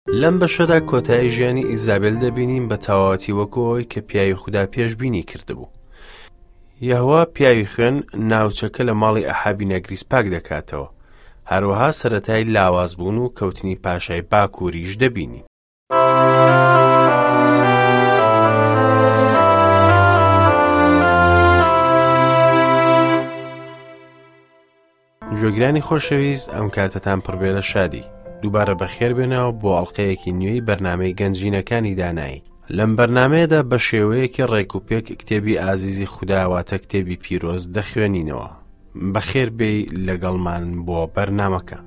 لەم بەشەدا کۆتایی ژیانی ئیزابێل دەبینین بە تەواوەتی وەکو ئەوەی کە پیاوی خودا پێشبینی کردبوو. یەهوە پیاوی خوێن ناوچەکە لە ماڵی ئەحابی نەگریس پاک دەکاتەوە. هەروەها سەرەتای لاوازبوون و کەوتنی پاشای باکووریش دەبینین. گوێگرانی خۆشەویست ئەم کاتەتان پڕبێ لە شادی دووبارە بەخێر بێنەوە بۆ ئەڵلقەیەکی نوێی بەرنمەی گەنجینەکانی دانایی لەم بەرنمەیەدا بە شێوەیەکی ڕێک و پێک کتێبی ئازیزی خودداواتە کتێبی پیرۆز دەخوێنینەوە بەخێر بێی لەگەڵمان بۆ بەرنمەکە.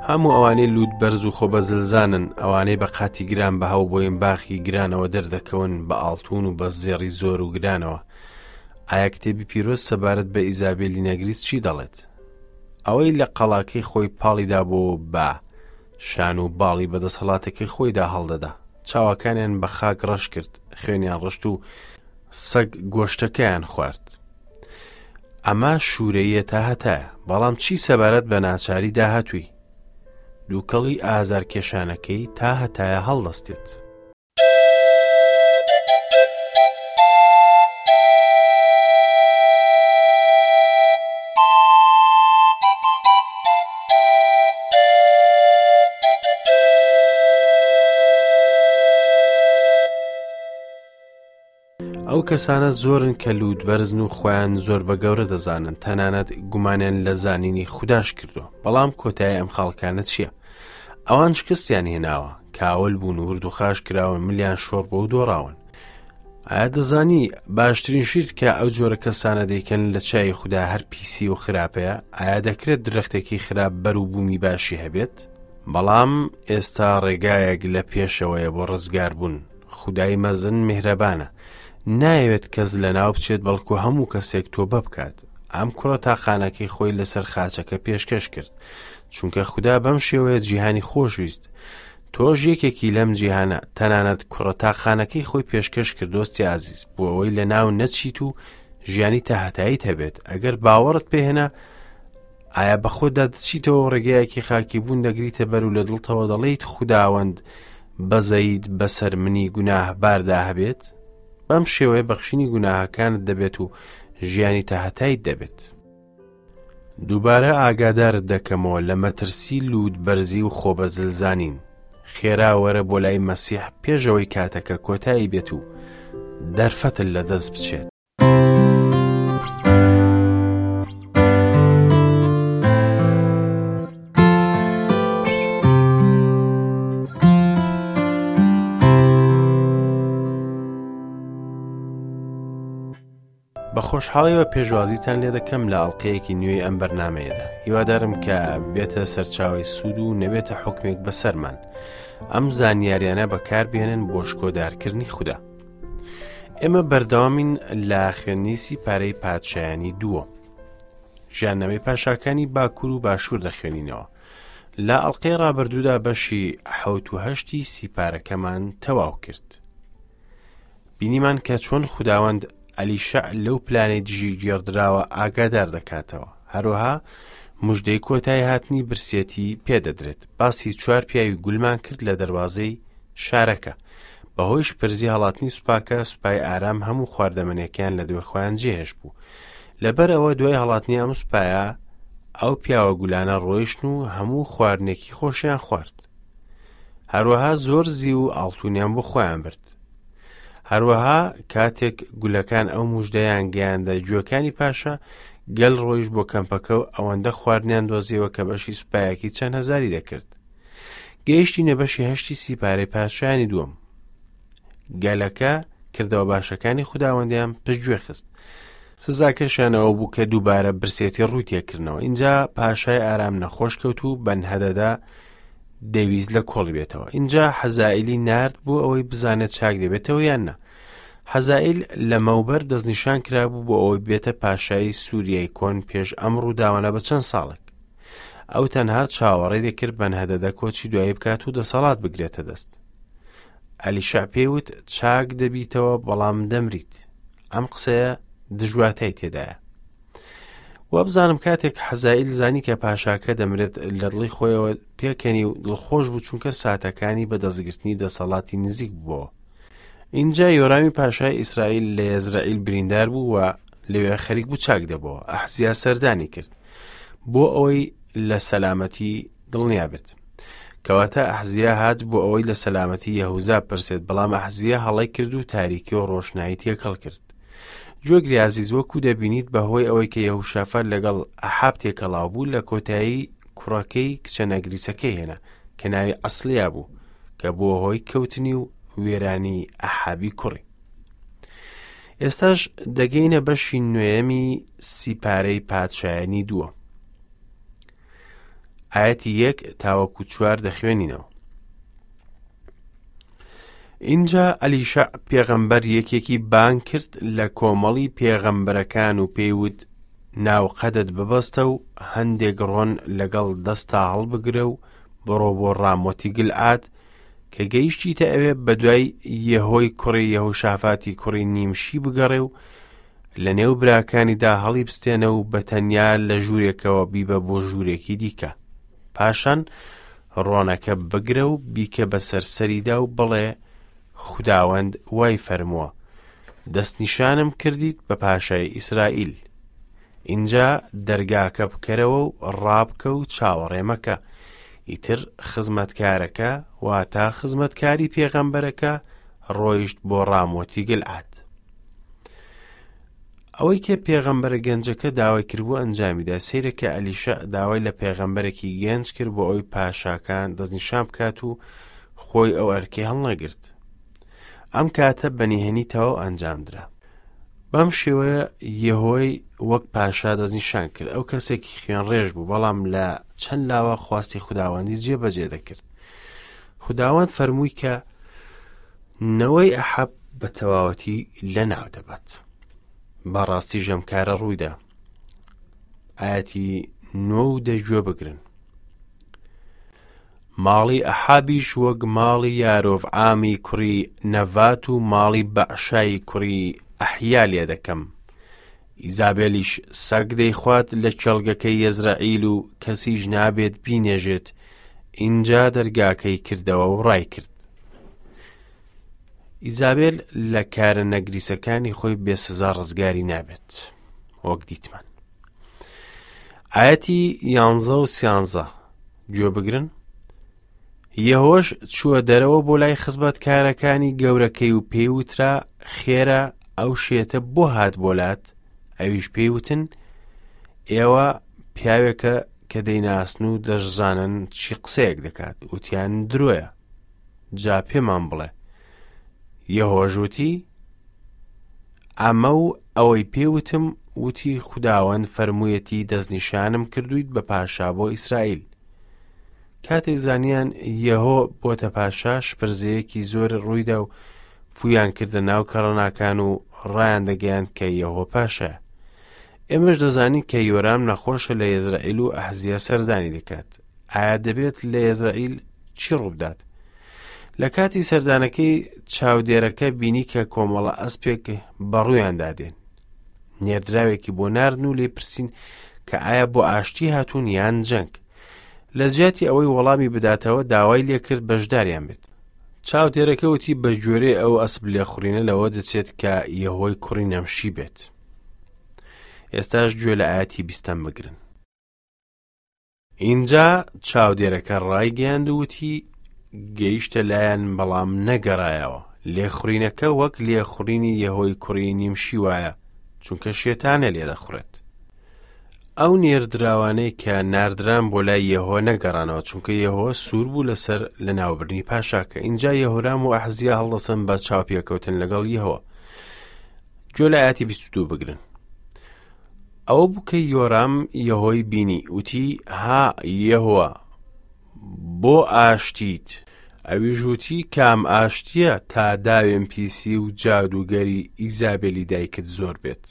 هەموو ئەوانەی لووت بەرز و خۆ بەزلزانن ئەوانەی بە قاتی گران بە هەو بۆین باخی گرانەوە دەردەکەون بە ئاڵتون و بە زێڕی زۆر و گرانەوە ئایا کتێبی پیرۆز سەبارەت بە ئیزابێلی نەگریس چی دەڵێت ئەوەی لە قەڵاکەی خۆی پاڵی دابۆ بە شان و باڵی بە دەسەڵاتەکەی خۆیدا هەڵدەدا چاوەکانیان بە خاک ڕەش کرد خوێنیان ڕشت و سەگ گۆشتەکەیان خوارد ئەمە شوورەیە تا هەتایە بەڵام چی سەبارەت بە ناچاری داهاتووی دووکەڵی ئازارکێشانەکەی تا هەتایە هەڵدەستێت. ئەو کەسانە زۆرن کە لووت بەرزن و خۆیان زۆر بە گەورە دەزانن تەنانەت گومانیان لە زانینی خودداش کردو بەڵام کۆتایی ئەم خاڵکانە چییە؟ ئەوان شکستیان هێناوە کاول بوون ورد و خاش کراون ملیان شۆڕ بۆ و دۆڕاون ئایا دەزانی باشترین شیت کە ئەو جۆرە کەسانە دەیکەن لە چای خوددا هەر پیسی و خراپەیە ئایا دەکرێت درەختێکی خراپ بەروبوومی باشی هەبێت بەڵام ئێستا ڕێگایەک لە پێشەوەیە بۆ ڕزگاربوون خودای مەزن میهرەبانە نایەوێت کەس لەناو بچێت بەڵکو هەموو کەسێک تۆبە بکات ئەم کوڕە تاقانەکەی خۆی لەسەر خاچەکە پێشکەش کرد چونکە خودا بەم شێوەیە جیهانی خۆشویست تۆش یەکێکی لەم جیهانە تەنانەت کوڕە تاقانەکەی خۆی پێشکەش کرد دۆستی ئازیز بۆ ئەوەی لە ناو نەچیت و ژیانی تاهتاییت هەبێت ئەگەر باوەڕت پێهێنا ئایا بە خۆتدا دەچیتەوە ڕێگایەکی خاکی بوون دەگریتە بەر و لە دڵتەوە دەڵێیت خوداوەند بەزەیت بەسەر منی گوناهباردا هەبێت؟ بەم شێوەیە بەخشینی گوناهەکانت دەبێت و ژیانی تاهەتایت دەبێت. دووبارە ئاگادارت دەکەمەوە لە مەترسی لووت بەرزی و خۆبەزلزانین. خێرا وەرە بۆ لای مەسیح پێشەوەی کاتەکە کۆتایی بێت و دەرفەتت لەدەست بچێت. بە خۆشحاڵیەوە پێشوازیتان لێ دەکەم لە ئەڵلقەیەکی نوێی ئەم بەرنمەیەدا هیوادارم کە بێتە سەرچاوی سوود و نەبێتە حکمێک بەسەرمان ئەم زانیاریانە بەکاربێنن بۆ شکۆدارکردنی خودا ئێمە بەردەوامین لە خوێندنی پارەی پادشایانی دووەم ژیاننامەی پاشاکانی باکوور و باشوور دەخوێنینەوە لە ئەڵلقەی ڕابردوودا بەشی حەوت و هەشتی سیپارەکەمان تەواو کرد بینیمان کە چۆن خوداوەند ئەلیشع لەو پلانەی دژی گێڕدراوە ئاگادار دەکاتەوە هەروەها مژدەی کۆتای هاتنی برسێتی پێدەدرێت باسی چوار پیاوی گولمان کرد لە دەواازەی شارەکە بەهۆی شپرزی هەڵاتنی سوپاکە سوپای ئارام هەموو خواردەمەنیەکەیان لە دوای خۆیان جێهێشت بوو لەبەر ئەوە دوای هەڵاتنی ئەم سوپایە ئەو پیاوە گولانە ڕۆیشتن و هەموو خواردنێکی خۆشیان خوارد هەروەها زۆر زیو و ئاڵتونیان بۆ خۆیان برد هەروەها کاتێک گولەکان ئەو مژدەیان گەیاندە گوێکانی پاشا گەل ڕۆیش بۆ کەمپەکە و ئەوەندە خواردنیان دۆزیەوە کە بەشی سوپایەکی چەند هەزاری دەکرد گەیشتینە بەشی هەشتی سیپارەی پادشایانی دووەم گەلەکە کردەوە باشەکانی خوداوەندیان پشتگوێ خست سزاکەشیانەوە بوو کە دووبارە برسێتی ڕووی تێکردنەوە اینجا پاشای ئارام نەخۆش کەوت و بەنهەدەدا دەویست لە کۆڵی بێتەوە اینجا حەزائیلی نارد بۆ ئەوەی بزانێت چاک دەبێتەوە یان نا حەزائیل لەمەوبەر دەستنیشان کرابوو بۆ ئەوەی بێتە پاشای سووریای کۆن پێش ئەم ڕووداوانە بە چەند ساڵێک. ئەو تەنها چاوەڕێی دەکرد بەنهەدەدە کۆچی دوایی بکات و دەسەڵات بگرێتە دەست. ئەلیشع پێی وت چاک دەبیتەوە بەڵام دەمریت. ئەم قسەیە دژواتای تێدایە. وابزانم کاتێک حەزائیل زانی کە پاشاکە دەمرێت لە دڵی خۆیەوە پێکەنی و دڵخۆش بوو چونکە ساتەکانی بە دەستگرتنی دەسەڵاتی نزیک بووەوە. ئینجا یۆرامی پاشای ئیسرائیل لە یەزرەعیل بریندار بوو و لەوێ خەریک بوو چاک دەبەوە. ئەحزیا سەردانی کرد بۆ ئەوەی لە سەلامەتی دڵنیا بێت. کەواتە ئەحزیا هات بۆ ئەوەی لە سەلامەتی یەهوزا پرسێت، بەڵام ئەحزیا هەڵەی کرد و تاریکی و ڕۆشنایی تێکەڵ کرد. گوێگری ئازیز وەکو دەبینیت بەهۆی ئەوەی کە یەهوشافات لەگەڵ ئەحاب تێکەڵاو بوو لە کۆتایی کوڕەکەی کچە نەگریسەکەی هێنا کە ناوی ئەسلیا بوو کە بووە هۆی کەوتنی و وێرانی ئەحابی کوڕی. ئێستاش دەگەینە بەشی نوێیەمی سیپارەی پادشایانی دووە. ئاەتی یەک تاوەکو چوار دەخوێنینەوە. ئینجا ئەلیشەع پێغەمبەر یەکێکی بانگ کرد لە کۆمەڵی پێغەمبەرەکان و پێی وت ناوقەدت ببەستە و هەندێک ڕۆن لەگەڵ دەستا هەڵبگرە و بڕۆ بۆ ڕامۆتی گلعاد کە گەیشتیتە ئەوێ بەدوای یەهۆی کوڕی یەهوشافاتی کوڕی نیمشی بگەڕێ و لە نێو براکانیدا هەڵی بستێنە و بە تەنیا لە ژوورێکەوە بیبە بۆ ژوورێکی دیکە پاشان ڕۆنەکە بگرە و بیکە بەسەر سەریدا و بڵێ خوداوەند وای فەرمووە دەستنیشانم کردیت بە پاشای ئیسرائیل ئینجا دەرگاکە بکەرەوە و ڕابکە و چاوەڕێ مەکە ئیتر خزمەتکارەکە واتا خزمەتکاری پێغەمبەرەکە ڕۆیشت بۆ ڕامۆتی گلعاد ئەوەی کە پێغەمبەرە گەنجەکە داوای کردبوو ئەنجامیدا سەیرە کە ئەلیشە داوای لە پێغەمبەرێکی گەنج کرد بۆ ئەوی پاشاکان دەستنیشان بکات و خۆی ئەو ئەرکەی هەڵنەگرت ئەم کاتە بە نهێنی تەواو ئەنجامدرا بەم شێوەیە یەهۆی وەک پاشا دەستنیشان کرد ئەو کەسێکی خوێنڕێژ بوو بەڵام لە چەند لاوە خواستی خوداوەندی جێبەجێ دەکرد خوداوەند فەرمووی کە نەوەی ئەحەب بە تەواوەتی لەناو دەبات. بەڕاستی ژەم کارە ڕوویدا. ئاەتی نۆ و دە گوێ بگرن. ماڵی ئەحابیش وەک ماڵی یارۆڤعامی کوڕی نەڤات و ماڵی بەعشای کوڕی ئەحیا لێ دەکەم. ئیزابێلیش سەگ دەیخوات لە کێڵگەکەی یەزرەعیل و کەسیش نابێت بینێژێت، ئینجا دەرگاکەی کردەوە و ڕایکرد. ئیزابێل لە کارە نەگریسەکانی خۆی بێ سزا ڕزگاری نابێت وەک دیتمان. ئاەتی یانزە و سیانزە گوێ بگرن یەهۆش چووە دەرەوە بۆ لای خزمەتکارەکانی گەورەکەی و پێی وترا خێرا ئەو شێتە بۆ هات بۆ لات ئەویش پێی وتن ئێوە پیاوێکە کە دەیناسن و دەشزانن چی قسەیەک دەکات وتیان درۆیە جا پێمان بڵێ یەهۆش وتی ئەمە و ئەوەی پێوتم وتی خوداوەند فەرموویەتی دەستنیشانم کردویت بە پاشا بۆ ئیسرائیل کاتێک زانیان یەهۆ بۆتە پاشا شپرزەیەکی زۆر ڕوویدا و فویان کردە ناو کەڕەناکان و ڕایان دەگەیاند کە یەهۆ پاشایە ئێمەش دەزانین کە یۆرام نەخۆشە لە یەزرائیل و ئەحزیە سەردانی دەکات ئایا دەبێت لە یەزرائیل چی ڕووبدات لە کاتی سەردانەکەی چاودێرەکە بینی کە کۆمەڵە ئەسپێک بەڕوویاندا دێن نێردراوێکی بۆ ناردن و لێ پرسین کە ئایا بۆ ئاشتی هاتوون یان جەنگ لە جیاتی ئەوەی وەڵامی بداتەوە داوای لێکرد بەشداریان بێت. چاودێرەکە وتی بە گوێرەی ئەو ئەسپ لێخوڕینە لەوە دەچێت کە یەهۆی کوڕی نەمشی بێت. ئێستاش گوێ لە ئاەتی بیستەم بگرن. ئینجا چاودێرەکە ڕایگەیاند و وتی گەیشتە لایەن بەڵام نەگەڕایەوە. لێخوڕینەکە وەک لێخوڕینی یەهۆی کوڕی نیمشی وایە چونکە شێتانە لێدەخوڕێت. ئەو نێردراوانەی کە ناردران بۆ لای یەهۆ نەگەڕانەوە چونکە یەهۆ سوور بوو لەسەر لەناوبردنی پاشاکە ئینجا یەهۆرام و ئەحزیا هەڵدەسن بە چاوپێکەوتن لەگەڵ یەهۆ گوێ لە ئاەتی 22 بگرن ئەوە بوو کە یۆرام یەهۆی بینی وتی ها یەهوە بۆ ئاشتیت ئەویش وتی کام ئاشتیە تا داوێن پیسی و جادووگەری ئیزابێلی دایکت زۆر بێت.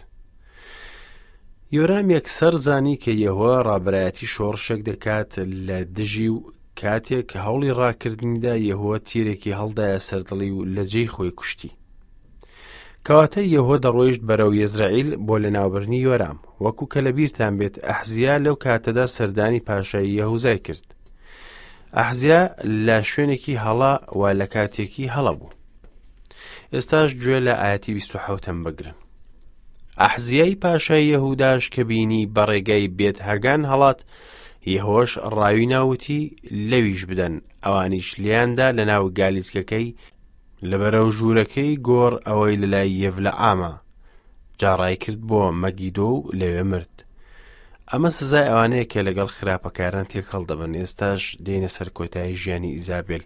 یۆرام یەکسەر زانی کە یەهوە ڕابەرایەتی شۆڕشێک دەکات لە دژی و کاتێک هەوڵی ڕاکردنیدا یەهوە تیرێکی هەڵدایە سەر دڵی و لە جێی خۆی کوشتی. کەواتە یەهوە دەڕۆیشت بەرەو یەزرەعیل بۆ لەناوبردنی یۆرام. وەکو کە لەبیرتان بێت ئەحزیا لەو کاتەدا سەردانی پاشای یەهوزای کرد. ئەحزیا لە شوێنێکی هەڵە و لە کاتێکی هەڵە بوو. ئێستاش گوێ لە ئاەتی 27 بگرن. ئەحزیای پاشای یەهوداش کە بینی بە ڕێگای بێت هەگان هەڵات، یەهۆش ڕاوی ناوتی لەویش بدەن، ئەوانیش لێیاندا لە ناو گالیسکەکەی لە بەرەو ژوورەکەی گۆڕ ئەوەی لە لای یەڤلەعامە، جا ڕای کرد بۆ مەگیدۆ و لەوێ مرد. ئەمە سزای ئەوانەیە کە لەگەڵ خراپەکاران تێکەڵ دەبن. ئێستاش دێینە سەر کۆتایی ژیانی ئیزابێل.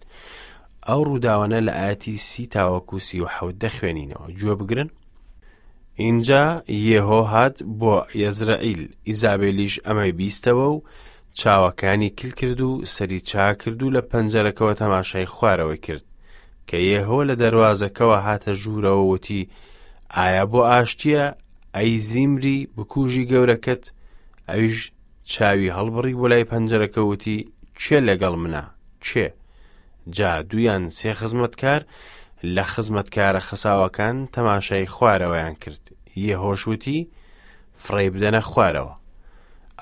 ئەو ڕووداوانە لە ئاەتی سی تاوەکو 37 دەخوێنینەوە. گوێ بگرن. ئینجا یێهۆ هات بۆ یەزرەعیل، ئیزابێلیش ئەمەی بیستەوە و چاوەکانی کل کرد و سەری چاکرد و لە پەنجەرەکەوە تەماشای خوارەوەی کرد. کە یێهۆ لە دەروازەکەوە هاتە ژوورەوە وتی، ئایا بۆ ئاشتییە، ئەی زیمری بکوژی گەورەکەت؟ ئەویش چاوی هەڵبڕی بۆ لای پەنجەرەکە وتی، کێ لەگەڵ منە؟ کێ؟ جا دوویان سێ خزمەتکار لە خزمەتکارە خەساوەکان تەماشای خوارەوەیان کرد. یێهۆش وتی، فڕێی بدەنە خوارەوە.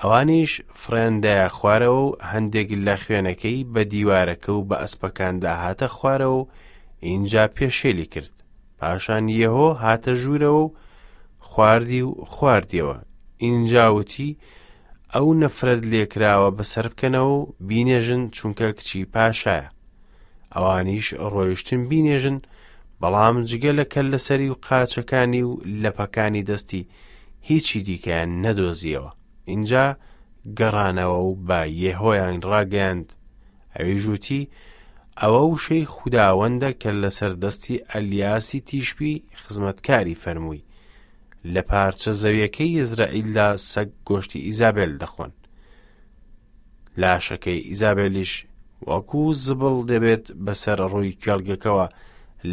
ئەوانیش فڕێیان دایە خوارەوە و هەندێک لە خوێنەکەی بە دیوارەکە و بە ئەسپەکاندا هاتە خوارەوە و ئینجا پێشێلی کرد. پاشان یێهۆ هاتە ژوورەوە و خواردی و خواردیەوە. ئینجا وتی، ئەو نەفرەت لێکراوە بەسەر بکەنەوە و بینێژن چونکە کچی پاشایە. ئەوانیش ڕۆیشتن بینێژن، بەڵام جگە لە کەللەسەری و قاچەکانی و لەپەکانی دەستی هیچی دیکەیان نەدۆزیەوە. ئینجا گەڕانەوە و بە یێهۆیان ڕاگەیاند. ئەویش وتی، ئەوە وشەی خوداوەندە کە لەسەر دەستی ئەلیاسی تیشبی خزمەتکاری فەرمووی، لە پارچە زەویەکەی یەزرەعیلدا سەگ گۆشتی ئیزابێل دەخۆن. لاشەکەی ئیزابێلیش وەکو زبڵ دەبێت بەسەر ڕووی کێڵگەکەوە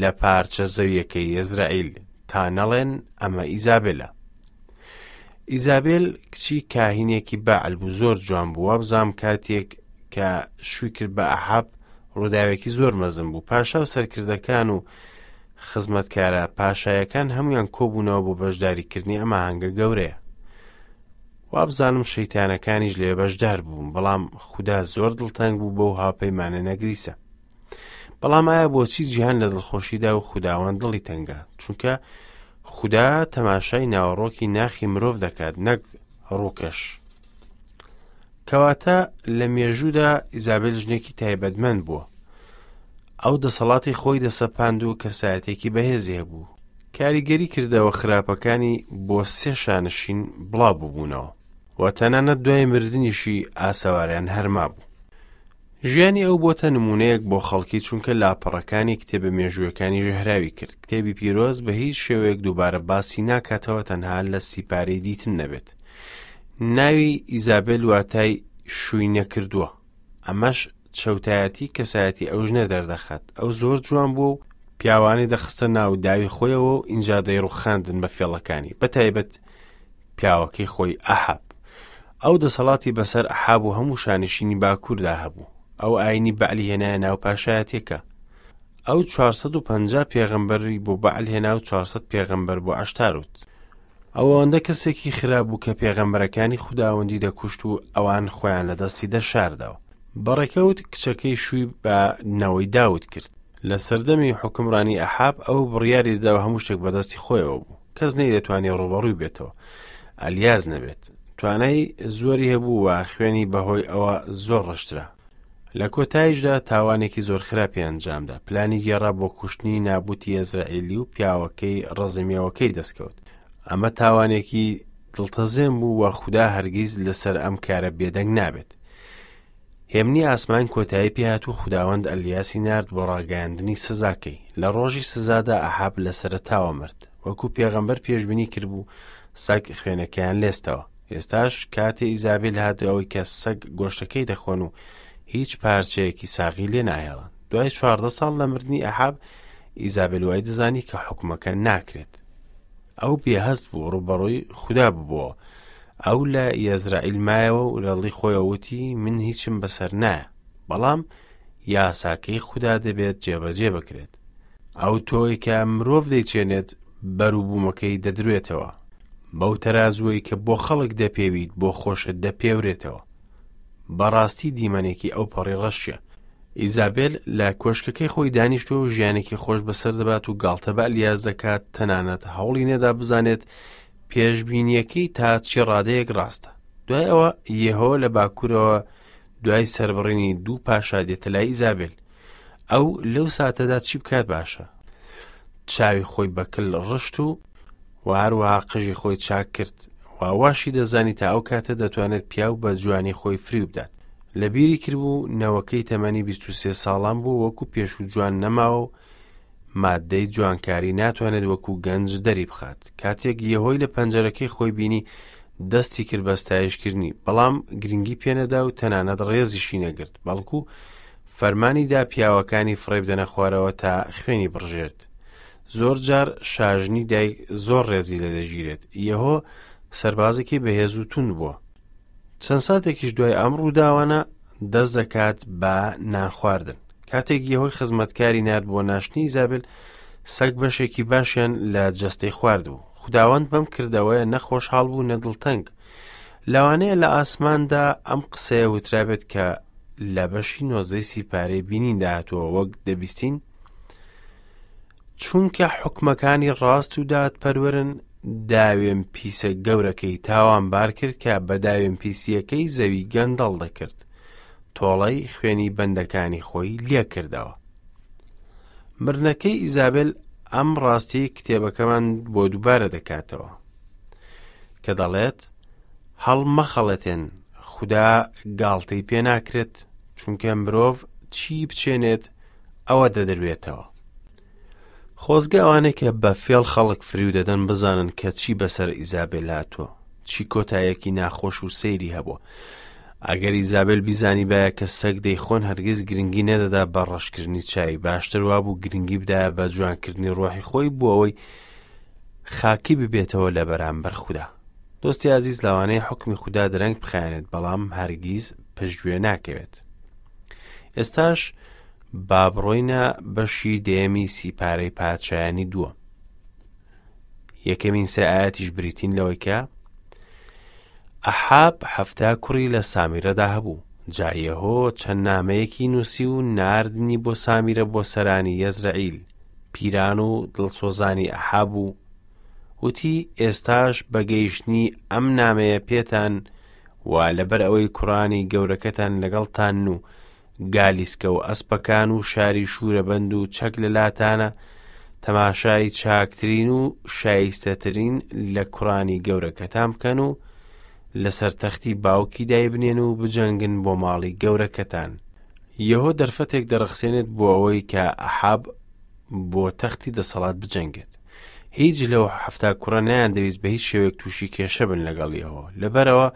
لە پارچە زەویەکەی یەزرەعیل تا نەڵێن ئەمە ئیزابێلە. ئیزابێل کچی کاهینێکی بەعل بوو زۆر جوان بوو وابزانم کاتێک کە شووی کرد بە ئەحاب ڕووداوێکی زۆر مەزن بوو پاشا و سەرکردەکان و خزمەتکارە پاشایەکان هەمویان کۆبوونەوە بۆ بەشداریکردنی ئەم ئاهەنگە گەورەیە وابزانم شەیتانەکانیش لێ بەشدار بوون بەڵام خودا زۆر دڵتەنگ بوو بەو هاوپەیمانە نەگریسە بەڵام ئایا بۆچی جیهان لە دڵخۆشیدا و خوداوەند دڵی تەنگە چونکە خودا تەماشای ناوەڕۆکی ناخی مرۆڤ دەکات نەک ڕووکەش کەواتە لە مێژوودا ئیزابێل ژنێکی تایبەتمەند بووە ئەو دەسەڵاتی خۆی دەسەپاند و کەسایەتێکی بەهێزی هەبوو کاریگەری کردەوە خراپەکانی بۆ سێ شانشین بڵاو ببوونەوە و تەنانەت دوای مردنیشی ئاسەواریان هەرما بوو ژیانی ئەو بۆتە نموونەیەک بۆ خەڵکی چونکە لاپەڕەکانی کتێبە مێژوویەکانی ژەهراوی کرد. کتێبی پیرۆز بە هیچ شێوەیەک دووبارە باسی ناکاتەوە تەنها لە سیپارەی دیتن نەبێت. ناوی ئیزابێل واتای شووی نەکردووە. ئەمەش چەوتایەتی کەسایەتی ئەو ژنە دەردەخات. ئەو زۆر جوان بووە و پیاوانی دەخستە ناو داوی خۆیەوە و ئینجا دەیڕوخاندن بە فێڵەکانی بە تایبەت پیاوەکەی خۆی ئەحاب. ئەو دەسەڵاتی بەسەر ئەحاب و هەموو شانشینی باکووردا هەبوو. ئەو ئاینی بەعلی هێنایە ناو پاشایەتیەکە. ئەو 450 پێغەمبەری بۆ بەعل هێنا و 400 پێغەمبەر بۆ عەشتاروت. ئەو ئەوەندە کەسێکی خراپ بوو کە پێغەمبەرەکانی خوداوەندی دەکوشت و ئەوان خۆیان لە دەستی دەشاردەوە. بەڕێکەوت کچەکەی شووی بە نەوەی داود کرد. لە سەردەمی حوکمڕانی ئەحاب ئەو بڕیاری دەدا و هەموو شتێک بەدەستی خۆیەوە بوو. کەس نەیدەتوانی ڕووبەڕووی بێتەوە ئەلیاس نەبێت توانای زۆری هەبوو و خوێنی بەهۆی ئەوە زۆر ڕشترا لە کۆتاییشدا تاوانێکی زۆر خراپی ئەنجامدا پلانی گێڕا بۆ کوشتنی نابوتی ئەزرائیلی و پیاوەکەی ڕزمیەوەکەی دەستکەوت ئەمە تاوانێکی دڵتەزێن بوو و خودا هەرگیز لەسەر ئەم کارە بێدەنگ نابێت هێمنی ئاسمان کۆتایی پێهات و خوداوەند ئەلیاسی نارد بۆ ڕاگەیاندنی سزاکەی. لە ڕۆژی سزادا ئەحاب لە سەرەتاوە مرد. وەکو پێغەمبەر پێشبینی کردبوو، سەگ خوێنەکەیان لێستەوە. ئێستاش کاتێ ئیزابیل هات ئەوەی کە سەگ گۆشتەکەی دەخۆن و هیچ پارچەیەکی ساغی لێ ناهێڵن. دوای 14 ساڵ لە مردنی ئەحاب، ئیزابێل وای دەزانی کە حوکمەکە ناکرێت. ئەو بێهەست بوو، ڕووبەڕووی خودا ببووەوە. ئەو لە یەزرائیل مایەوە و لە دڵی خۆیەوە وتی من هیچم بەسەر نایە. بەڵام یاساکەی خودا دەبێت جێبەجێ بکرێت. ئەو تۆی کە مرۆڤ دەیچێنێت بەروبوومەکەی دەدروێتەوە. بەو تەرازووەی کە بۆ خەڵک دەپێویت بۆ خۆشت دەپێورێتەوە. بەڕاستی دیمەنێکی ئەوپەڕی ڕەشیە. ئیزابێل لە کۆشکەکەی خۆی دانیشتووە و ژیانێکی خۆش بەسەر دەبات و گاڵتە بە ئەلیاس دەکات، تەنانەت هەوڵی نەدا بزانێت پێشبینیەکەی تا چی ڕادەیەک ڕاستە. دوای ئەوە یێهۆ لە باکوورەوە دوای سەربڕینی دوو پاشا دێتە لای ئیزابێل. ئەو لەو ساتەدا چی بکات باشە؟ چاوی خۆی بە کل ڕشت و و هەروەها قژی خۆی چاک کرد و واشی دەزانی تا ئەو کاتە دەتوانێت پیاو بە جوانی خۆی فریو بدات. لە بیری کردبوو نەوەکەی تەمەنی 23 ساڵان بوو وەکو پێشوو جوان نەماوە و مادەی جوانکاری ناتوانێت وەکو گەنج دەری بخات. کاتێک یەهۆی لە پەنجەرەکەی خۆی بینی دەستی کرد بە ستایشکردنی، بەڵام گرنگی پێنەدا و تەنانەت ڕێزیشی نەگرت، بەڵکو فەرمانی دا پیاوەکانی فڕێ بدەنە خوارەوە تا خوێنی بڕژێت. زۆر جار شاژنی دایک زۆر ڕێزی لێ دەگیرێت. یەهۆ سەربازێکی بەهێز و توند بووە. چەند ساتێکیش دوای ئەم ڕووداوانە دەست دەکات بە نانخواردن. کاتێک یەهۆی خزمەتکاری نارد بۆ ناشتنی ئیزابێل، سەگ بەشێکی باشیان لە جەستەی خواردبوو. خوداوەند بەم کردەوەیە نە خۆشحاڵ بوو نە دڵتەنگ. لەوانەیە لە ئاسماندا ئەم قسەیە وترابێت کە لە بەشی نۆزدەی سیپارەی بینیندا هاتووە وەک دەبیستین چونکە حکومەکانی ڕاست و دادپەروەرن داوێن پیسە گەورەکەی تاوانبار کرد کە بە داوێن پیسیەکەی زەوی گەندەڵ دەکرد تۆڵەی خوێنی بەندەکانی خۆی لێکردەوە مردنەکەی ئیزابێل ئەم ڕاستی کتێبەکەمان بۆ دووبارە دەکاتەوە کە دەڵێت هەڵمەخەڵەتێن خودا گاڵتەی پێ ناکرێت چونکە مرۆڤ چی بچێنێت ئەوە دەدروێتەوە خۆزگە ئەوانەی کە بە فێڵ خەڵک فریو دەدەن بزانن کە چی بەسەر ئیزابێل هاتووە چی کۆتایەکی ناخۆش و سەیری هەبووە ئەگەر ئیزابێل بیزانیبایە کە سەگ دەیخۆن هەرگیز گرنگی نەدەدا بە ڕەشکردنی چاوی باشتر وابوو گرنگی بدایە بە جوانکردنی ڕۆحی خۆی بۆ ئەوەی خاکی ببێتەوە لە بەرامبەر خودا دۆستی ئازیز لەوانەیە حکمی خودا درەنگ بخایەنێت بەڵام هەرگیز پشتگوێ ناکەوێت ئێستاش با بڕۆینە بەشی دەیەمی سیپارەی پادشایانی دووە یەکەمین سێ ئاەتیش بریتین لەوەی کە ئەحاب حەفتا کوڕی لە سامیرەدا هەبوو جا یەهۆ چەند نامەیەکی نووسی و ناردنی بۆ سامیرە بۆ سەرانی یەزرەعیل پیران و دڵسۆزانی ئەحاب و وتی ئێستاش بە گەیشتنی ئەم نامەیە پێتان و لەبەر ئەوەی کوڕانی گەورەکەتان لەگەڵتانن و گالیسکە و ئەسپەکان و شاری شوورەبەند و چەک لە لاتانە، تەماشای چاکترین و شایستەترین لە کوڕانی گەورەکەتان بکەن و لەسەر تەختی باوکی دایبنێن و بجەنگن بۆ ماڵی گەورەکەتان. یەهۆ دەرفەتێک دەڕەخسێنێت بۆ ئەوەی کە ئەحاب بۆ تەختی دەسەڵات بجەنگێت. هیچ لەو حەفتا کوڕە نەیاندەویست بە هیچ شێوەیەک تووشی کێشە بن لەگەڵ یەهۆ. لەبەرئەوە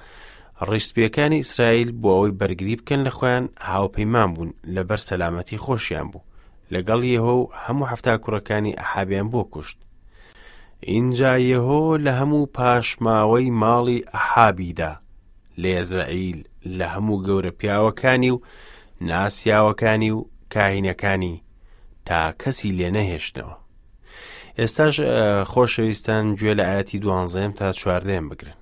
ڕیشسپییەکانی ئیسرائیل بۆ ئەوەی بەرگری بکەن لە خۆیان هاوپەیمان بوون لەبەر سەلامەتی خۆشیان بوو لەگەڵ یەهۆ و هەموو حەفتا کوڕەکانی ئەحابیان بۆ کوشت. ئینجا یەهۆ لە هەموو پاشماوەی ماڵی ئەحابی دا لە یەزرەعیل لە هەموو گەورە پیاوەکانی و ناسیاوەکانی و کاهینەکانی تا کەسی لێ نەهێشتنەوە. ئێستاش خۆشەویستان گوێ لە ئاەتی دوانزەیەم تا چواردەیەم بگرن.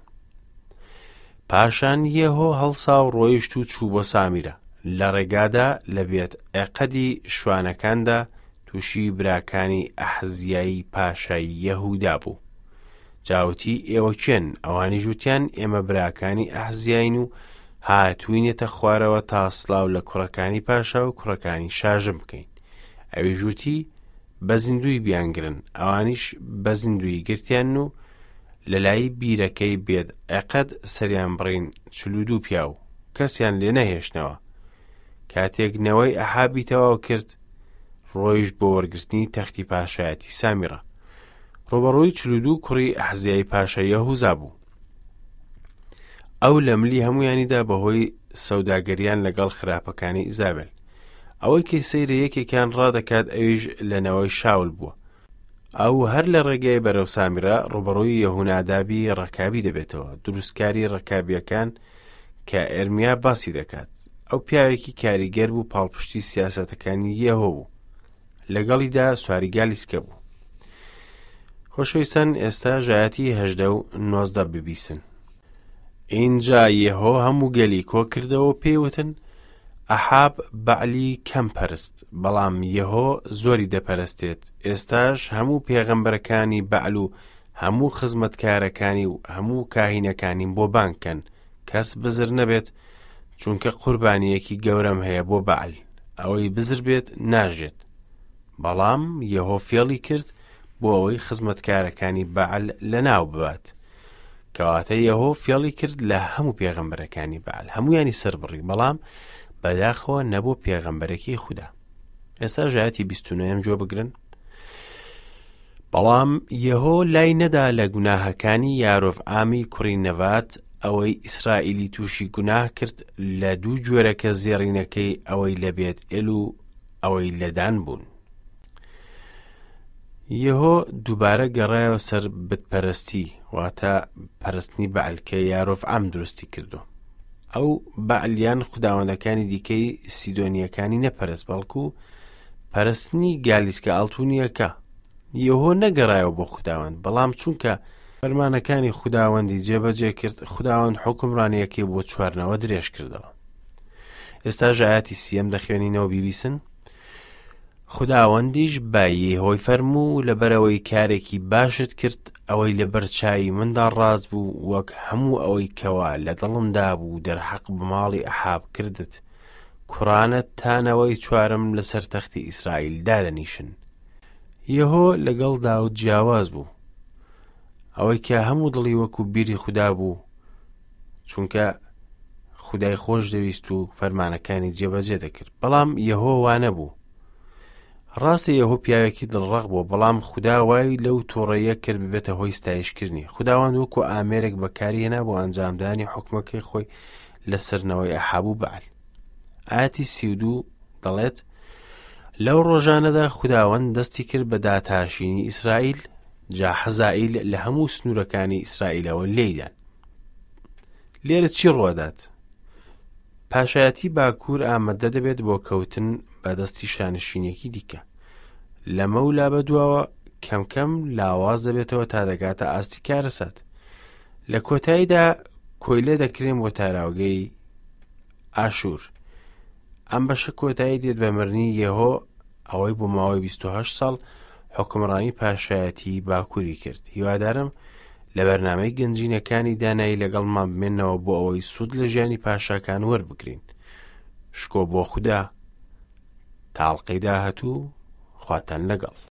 پاشان یێهۆ هەڵسا و ڕۆیشت و چوو بۆ سامیرە. لە ڕێگادا لە بێت عێقەدی شوانەکاندا تووشی براکانی ئەحزیای پاشای یەهودا بوو. جا وتی، ئێوە کێن؟ ئەوانیش وتیان، ئێمە براکانی ئەحزیاین و هاتووینەتە خوارەوە تا سڵاو لە کوڕەکانی پاشا و کوڕەکانی شاژن بکەین. ئەویش وتی، بە زیندووی بیانگرن. ئەوانیش بە زیندوویی گرتیان و لە لای بیرەکەی بێت عێقەد سەریان بڕین 42 پیاو، کەسیان لێ نەهێشتنەوە. کاتێک نەوەی ئەحابی تەواو کرد، ڕۆیشت بۆ وەرگرتنی تەختی پاشایەتی سامیڕە. ڕووبەڕووی 42 کوڕی ئەحزیای پاشای یەهوزا بوو. ئەو لە ملی هەمویانیدا بەهۆی سەوداگەریان لەگەڵ خراپەکانی ئیزابێل. ئەوەی کە سەیرە یەکێکیان ڕادەکات ئەویش لە نەوەی شاول بووە. ئەو هەر لە ڕێگەی بەرەو سامیرە ڕووبەڕووی یەهونادابی ڕەکابی دەبێتەوە، دروستکاری ڕەکابییەکان کە ئێرمیا باسی دەکات. ئەو پیاوێکی کاریگەر بوو پاڵپشتی سیاسەتەکانی یەهۆ بوو. لەگەڵیدا سواری گالیسکە بوو. خۆشەویستان ئێستا ژایەتی هەژدە و نۆزدە ببیسن. ئینجا یەهۆ هەموو گەلی کۆ کردەوە و پێی وتن، ئەحاب بەعلی کەم پەرست، بەڵام یەهۆ زۆری دەپەرستێت، ئێستاش هەموو پێغەمبەرەکانی بەعل و هەموو خزمەتکارەکانی و هەموو کاهینەکانیم بۆ بانگ کەن، کەس بزر نەبێت، چونکە قوربانییەکی گەورەم هەیە بۆ بەعل، ئەوەی بزر بێت ناژێت. بەڵام یەهۆ فێڵی کرد بۆ ئەوەی خزمەتکارەکانی بەعل لەناو ببات. کەواتە یەهۆ فێڵی کرد لە هەموو پێغەمبەرەکانی بەعل، هەمویانی سەربڕی، بەڵام بەداخەوە نەبوو پێغەمبەرێکی خودا. ئێستا ژایەتی 29 گوێ بگرن. بەڵام یەهۆ لای نەدا لە گوناهەکانی یارۆڤعامی کوڕی نەڤات ئەوەی ئیسرائیلی تووشی گوناه کرد لە دوو گوێرەکە زێڕینەکەی ئەوەی لە بێت ئێل و ئەوەی لە دان بوون. یەهۆ دووبارە گەڕایەوە سەر بتپەرستی واتە پەرستنی بەعل کە یارۆڤعام دروستی کردو. ئەو بەعلیان خوداوەندەکانی دیکەی سیدۆنیەکانی نەپەرست بەڵکو پەرستنی گالیسکە ئاڵتونیەکە. یەهۆ نەگەڕایەوە بۆ خوداوەند بەڵام چونکە فەرمانەکانی خوداوەندی جێبەجێ کرد خوداوەند حوکمڕانیەکەی بۆ چوارنەوە درێژ کردەوە. ئێستا ژایەتی سیەم دەخوێنینەوە بیبیسن. خوداوەندیش بە یێهۆی فەرموو، لەبەرئەوەی کارێکی باشت کرد، ئەوەی لەبەر چاوی مندا ڕاست بوو، وەک هەموو ئەوەی کەوا لە دڵمدا بوو دەرحەق بە ماڵی ئەحاب کردت، کوڕانت تا نەوەی چوارم لەسەر تەختی ئیسرائیل دادەنیشن. یێهۆ لەگەڵ داود جیاواز بوو. ئەوەی کە هەموو دڵی وەکو بیری خودا بوو، چونکە خودای خۆش دەویست و فەرمانەکانی جێبەجێ دەکرد بەڵام یەهۆ وانە بوو ڕاستە یەهۆ پیاوێکی دڵڕەق بوو بەڵام خودا وای لەو تووڕەیە کرد ببێتە هۆی ستایشکردنی خداوەند وەکو ئامێرێک بەکاری هێنا بۆ ئەنجامدانی حکومەکەی خۆی لەسەرنەوەی ئەحاب و بەعل ئاەتی 32 دەڵێت لەو ڕۆژانەدا خداوەند دەستی کرد بە داتاشینی ئیسرائیل جا حەزائیل لە هەموو سنوورەکانی ئیسرائیلەوە لێیدان. لێرە چی ڕوەدات؟ پاشایەتی باکوور ئامادە دەبێت بۆ کەوتن بە دەستی شانشینێکی دیکە. لەمە و لا بەدواوە کەم کەم لاواز دەبێتەوە تا دەگاتە ئاستی کارەسات. لە کۆتاییدا کۆیلە دەکرێن بۆ تاراوگەی ئاشوور. ئەم بەشە کۆتایی دێت بە مرنی یەهۆ ئەوەی بۆ ماوەی 28 ساڵ حوکمڕانی پاشایەتی باکووری کرد. هیوادارم لە بەرنامەی گەنجینەکانی دانایی لەگەڵمان بمێنەوە بۆ ئەوەی سوود لە ژیانی پاشاکان وەربگرین. شکۆ بۆ خودا. تا ئەڵقەی داهاتوو خواتان لەگەڵ.